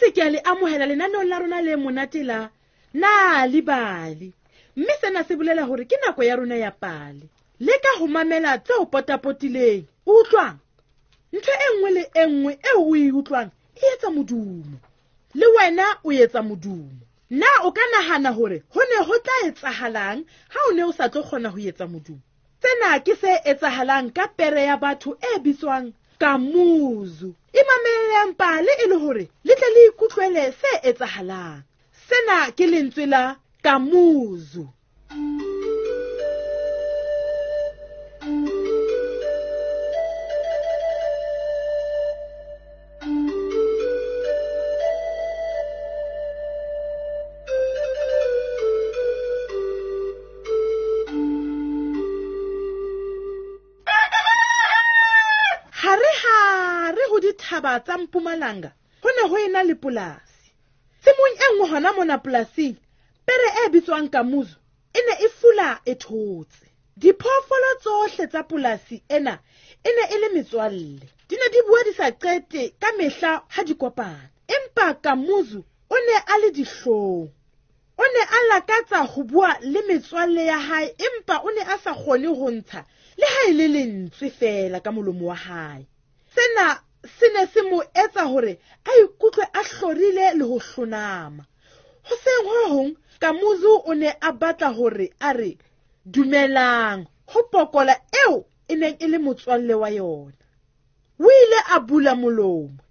boetse ke a le amohela lenaneong la rona le monate la Nal'ibali. Mme sena se bolela hore ke nako ya rona ya pale. Leka ho mamela tse o potapotileng. Utlwang? Ntho e nngwe le e nngwe eo o e utlwang e etsa modumo. Le wena o etsa modumo. Na o ka nahana hore ho ne ho tla etsahalang ha o ne o sa tlo kgona ho etsa modumo? Sena ke se etsahalang ka pere ya batho e bitswang Kamuzu. Imamellang pale e le hore le tle le ikutlwele se etsahalang. Sena ke lentswe la Kamuzu. Hare-hare ho dithaba tsa Mpumalanga ho ne ho ena le polasi. Tshimong e nngwe hona mona polasing, pere e bitswang Kamuzu e ne e fula e thotse. Diphoofolo tsohle tsa polasi ena e ne e le metswalle. Di ne di bua di sa qete ka mehla ha di kopana. Empa Kamuzu o ne a le dihlong. O ne a lakatsa ho bua le metswalle ya hae, empa o ne a sa kgone ho ntsha le ha e le lentswe feela ka molomo wa hae. Sena se ne se mo etsa hore a ikutlwe a hlorile le ho hlonama. Hoseng ho hong, Kamuzu o ne a batla hore a re dumelang ho pokola eo e neng e le motswalle wa yona. O ile a bula molomo,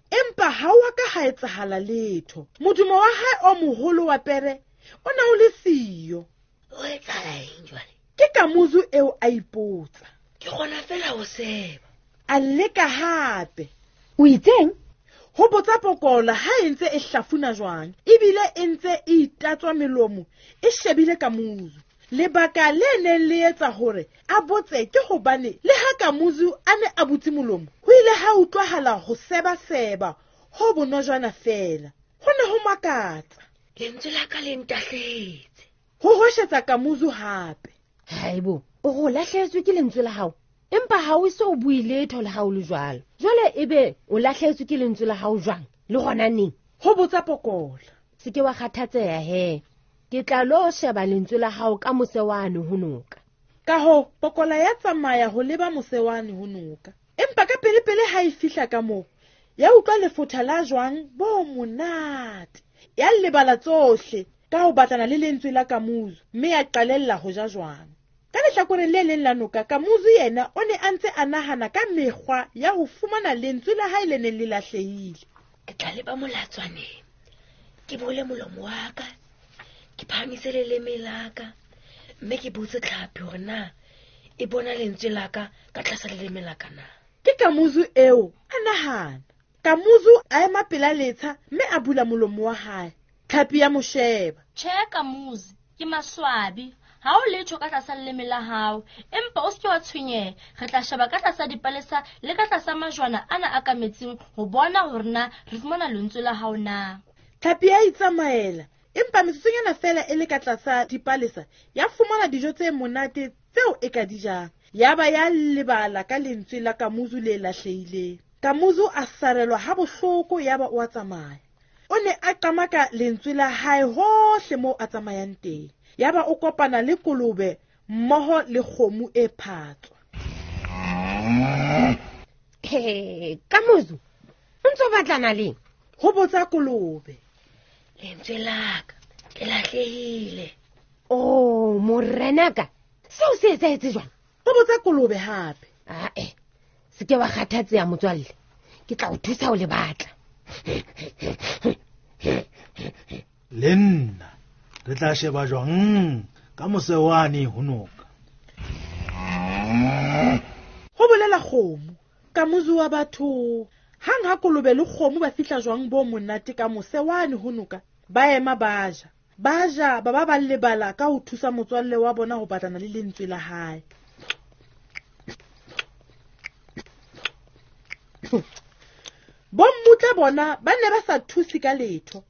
empa ha wa ka ha etsahala letho. Modumo wa hae o moholo wa pere o ne o le siyo. O etsahala eng jwale? Ke Kamuzu eo a ipotsa. Ke kgona fela ho seba. A leka hape. O itseng? Ho botsa pokola ha e ntse e hlafuna jwang, ebile e ntse e itatswa melomo e shebile Kamuzu. Lebaka le neng le etsa hore a botse ke hobane le ha Kamuzu a ne a butse molomo, ho ile ha utlwahala ho sebaseba ho bonojwana feela. Ho ne ho makatsa. Lentswe la ka le ntahlehetse. Ho hweshetsa Kamuzu hape. Haibo, o go lahlehetswe ke lentswe la hao? Empa ha o se o bue letho le ha o le jwalo. Jwale ebe o lahlehetswe ke lentswe la hao jwang? Le hona neng? Ho botsa pokola. Se ke wa kgathatseha he. Ke tla lo sheba lentswe la hao ka mose wane ho noka. Ka hoo, pokola ya tsamaya ho leba mose wane ho noka. Empa ka pele-pele ha e fihla ka moo, ya utlwa lefotha la jwang bo monate. Ya lebala tsohle ka ho batlana le lentswe la Kamuzu, mme ya qalella ho ja jwang. Ka lehlakoreng le leng la noka, Kamuzu yena o ne a ntse a nahana ka mekgwa ya ho fumana lentswe la hae le neng le lahlehile. Ke tla leba molatswaneng, ke bole molomo wa ka, ke phahamise leleme la ka, mme ke botse tlhapi hore na e bona lentswe la ka ka tlasa leleme la ka na. Ke Kamuzu eo a nahana. Kamuzu a ema pela letsha mme a bula molomo wa hae. Tlhapi ya mo sheba. Tjhe, Kamuzu, ke maswabi. Ha o letho ka tlasa leleme la hao, empa o se ke wa tshwenyeha. Re tla sheba ka tlasa dipalesa le ka tlasa majwana ana a ka metsing ho bona hore na re fumana lentswe la hao na. Tlhapi ya itsamaela, empa metsotsonyana feela e le ka tlasa dipalesa ya fumana dijo tse monate tseo e ka di jang. Ya ba ya lebala ka lentswe la Kamuzu le lahlehileng. Kamuzu a sarelwa ha bohloko ya ba o a tsamaya. O ne a qamaka lentswe la hae hohle moo a tsamayang teng. Ya ba o kopana le kolobe mmoho le kgomo e phatswa. He, Kamuzu, o ntso batlana leng? Ho botsa kolobe. Lentswe la ka le lahlehile. Oh, morenaka, seo se etsahetse jwang? Ho botsa kolobe hape. Ae, se ke wa kgathatseha motswalle. Ke tla o thusa ho le batla. Le nna re tla sheba jwang ka mose wane ho noka. Ho bolela kgomo. Kamuzu wa batho. Hang ha kolobe le kgomo ba fihla jwang bo monate ka mose wane ho noka, ba ema ba ja. Ba ja ba ba ba lebala ka ho thusa motswalle wa bona ho batlana le lentswe la hae. Bommutla bona ba ne ba sa thuse ka letho.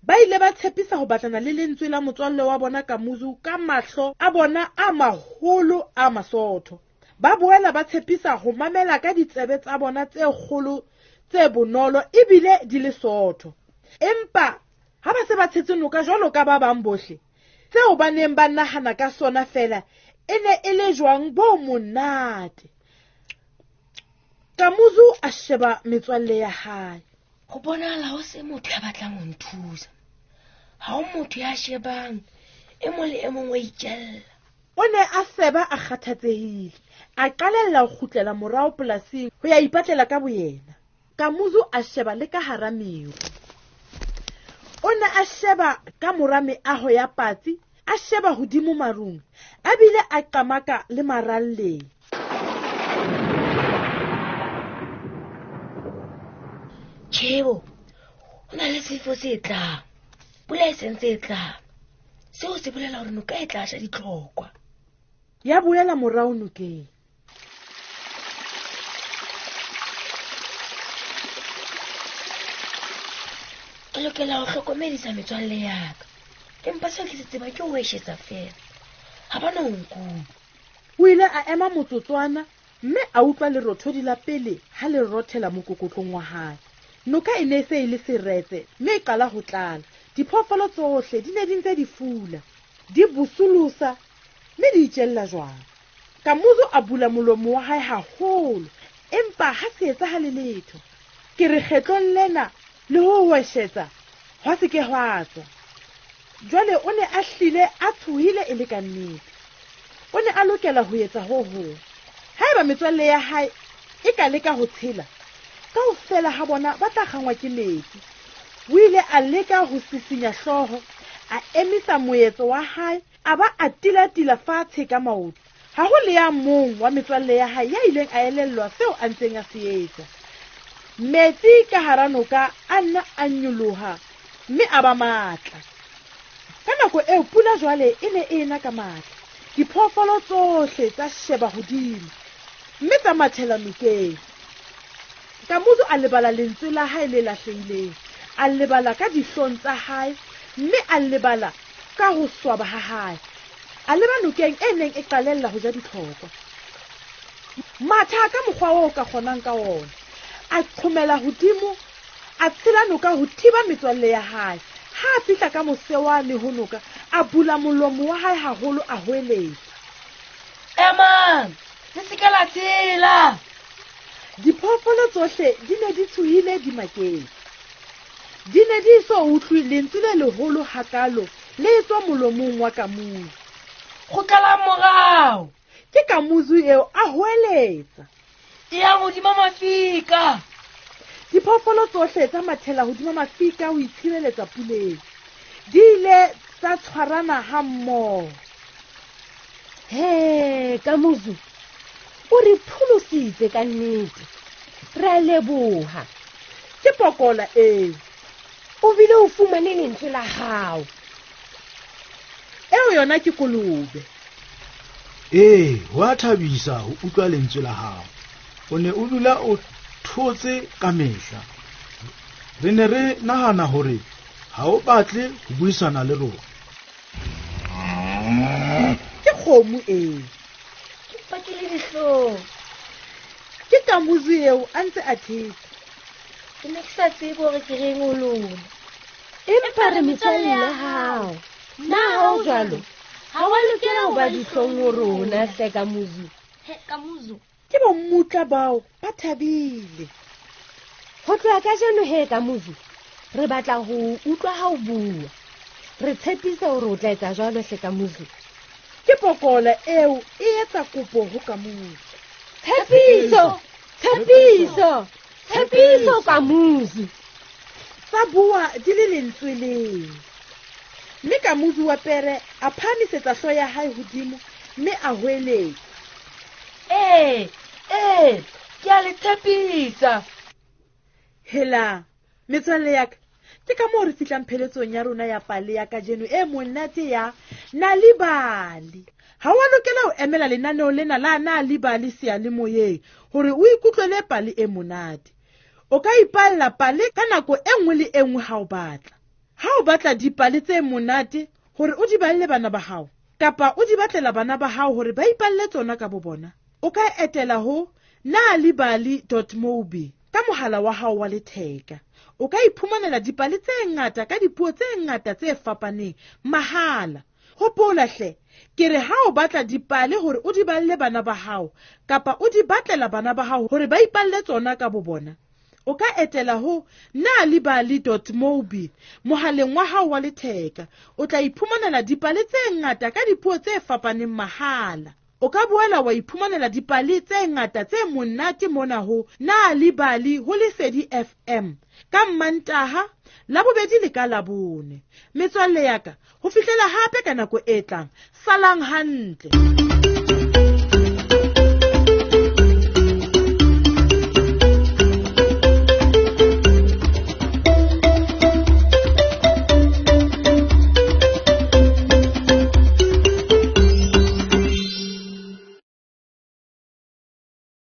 Ba ile ba tshepisa ho batlana le lentswe la motswalle wa bona Kamuzu ka mahlo a bona a maholo a masootho. Ba boela ba tshepisa ho mamela ka ditsebe tsa bona tse kgolo tse bonolo ebile di le sootho. Empa ha ba se ba tshetse noka jwalo ka ba bang bohle, seo ba neng ba nahana ka sona feela e ne e le jwang bo monate. Kamuzu a sheba metswalle ya hae. Ho bonahala ho se motho ya batlang ho nthusa. Ha ho motho ya shebang, e mong le e mong wa itjella. O ne a seba a kgathatsehile, a qalella ho kgutlela morao polasing ho ya ipatlela ka boyena. Kamuzu a sheba le ka hara meru. O ne a sheba ka mora meaho ya patsi, a sheba hodimo marung, a bile a qamaka le maralleng. Tjhebo, ho na le sefo se tlang. Pula e sentse e tlang. Seo se bolela hore noka e tla sha ditlhokwa. Ya boela morao nokeng. Ke lokela ho hlokomedisa metswalle ya ka. Empa seo ke se tsebang ke ho eshetsa feela. Ha ba no nkutlwa. O ile a ema motsotswana mme a utlwa lerothodi la pele ha le rothela mokokotlong wa hae. Noka e ne e se e le seretse mme e qala ho tlala. Diphoofolo tsohle di ne di ntse di fula, di bosolosa mme di itjella jwang. Kamuzu a bula molomo wa hae haholo, empa ha se etsahale letho. Ke re kgetlong lena le ho hweshetsa hwa se ke hwa tswa. Jwale o ne a hlile a tshohile e le ka nnete. O ne a lokela ho etsa ho hong. Haeba metswalle ya hae e ka leka ho tshela, kaofela ha bona ba tla kgangwa ke metsi. O ile a leka ho sisinya hlooho, a emisa moetso wa hae, a ba a tilatila fatshe ka maoto. Ha ho le ya mong wa metswalle ya hae ya ileng a elellwa seo a ntseng a se etsa. Metsi ka hara noka a nna a nyoloha mme a ba matla. Ka nako eo pula jwale e ne e ena ka matla. Diphoofolo tsohle tsa sheba hodimo mme tsa mathela nokeng. Kamuzu a lebala lentswe la hae le lahlehileng, a lebala ka dihlong tsa hae mme a lebala ka ho swaba ha hae. A leba nokeng e neng e qalella ho ja ditlhokwa. Matha ka mokgwa oo ka kgonang ka ona. A qhomela hodimo, a tshela noka ho thiba metswalle ya hae. Ha a fihla ka mose wane ho noka, a bula molomo wa hae haholo a hoeletsa. Emang, le se ke la tshela. Diphoofolo tsohle di ne di tshohile di maketse. Di ne di so utlwe lentswe le leholo hakalo le tswa molomong wa Kamuzu. Kgutlelang morao. Ke Kamuzu eo a hoeletsa. E yang hodima mafika. Diphoofolo tsohle tsa mathela hodima mafika ho itshireletsa puleng. Di ile tsa tshwarana ha mmoho. He, Kamuzu, o re pholositse ka nnete. Re a leboha. Ke pokola eo. O bile o fumane lentswe la hao. Eo yona ke kolobe. Ee, ho a thabisa ho utlwa lentswe la hao. O ne o dula o thotse ka mehla. Re ne re nahana hore ha o batle ho buisana le rona. Ke kgomo eo. Ke pakile dihlong. Ke Kamuzu eo a ntse a thetsa. Ke ne ke sa tsebe hore ke reng ho lona. Empa re metswalle ya hao. Na ha o jwalo? Ha wa lokela ho ba dihlong ho rona hle Kamuzu. He, Kamuzu. Ke bommutla bao ba thabile. Ho tloha kajeno he Kamuzu, re batla ho utlwa ha o bua. Re tshepisa hore o tla etsa jwalo hle Kamuzu. Ke pokola eo e etsa kopo ho Kamuzu. Tshepiso, tshepiso, tshepiso Kamuzu. Tsa bua di le lentswe leng. Mme Kamuzu wa pere a phahamisetsa hlooho ya hae hodimo mme a hoeletsa. Ee, ee, ke a le tshepisa. Hela, metswalle ya ka, ke ka moo re fihlang pheletsong ya rona ya pale ya kajeno e monate ya Nal'ibali. Ha wa lokela ho emela lenaneo lena la Nal'ibali seyalemoyeng hore o ikutlwele pale e monate. O ka ipalla pale ka nako e nngwe le e nngwe ha o batla. Ha o batla dipale tse monate hore o di balle bana ba hao, kapa o di batlela bana ba hao hore ba ipalle tsona ka bo bona, o ka etela ho nalibali dot mobi. Ka mohala wa hao wa letheka, o ka iphumanela dipale tse ngata ka dipuo tse ngata tse fapaneng mahala. Hopola hle, ke re ha o batla dipale hore o di balle bana ba hao kapa o di batlela bana ba hao hore ba ipalle tsona ka bobona, o ka etela ho nalibali.mobi mohaleng wa hao wa letheka. O tla iphumanela dipale tse ngata ka dipuo tse fapaneng mahala. O ka boela wa iphumanela dipale tse ngata tse monate mona ho Nalibali ho Lesedi FM ka Mmantaha, Labobedi le ka Labone. Metswalle ya ka, ho fihlela hape ka nako e tlang, salang hantle.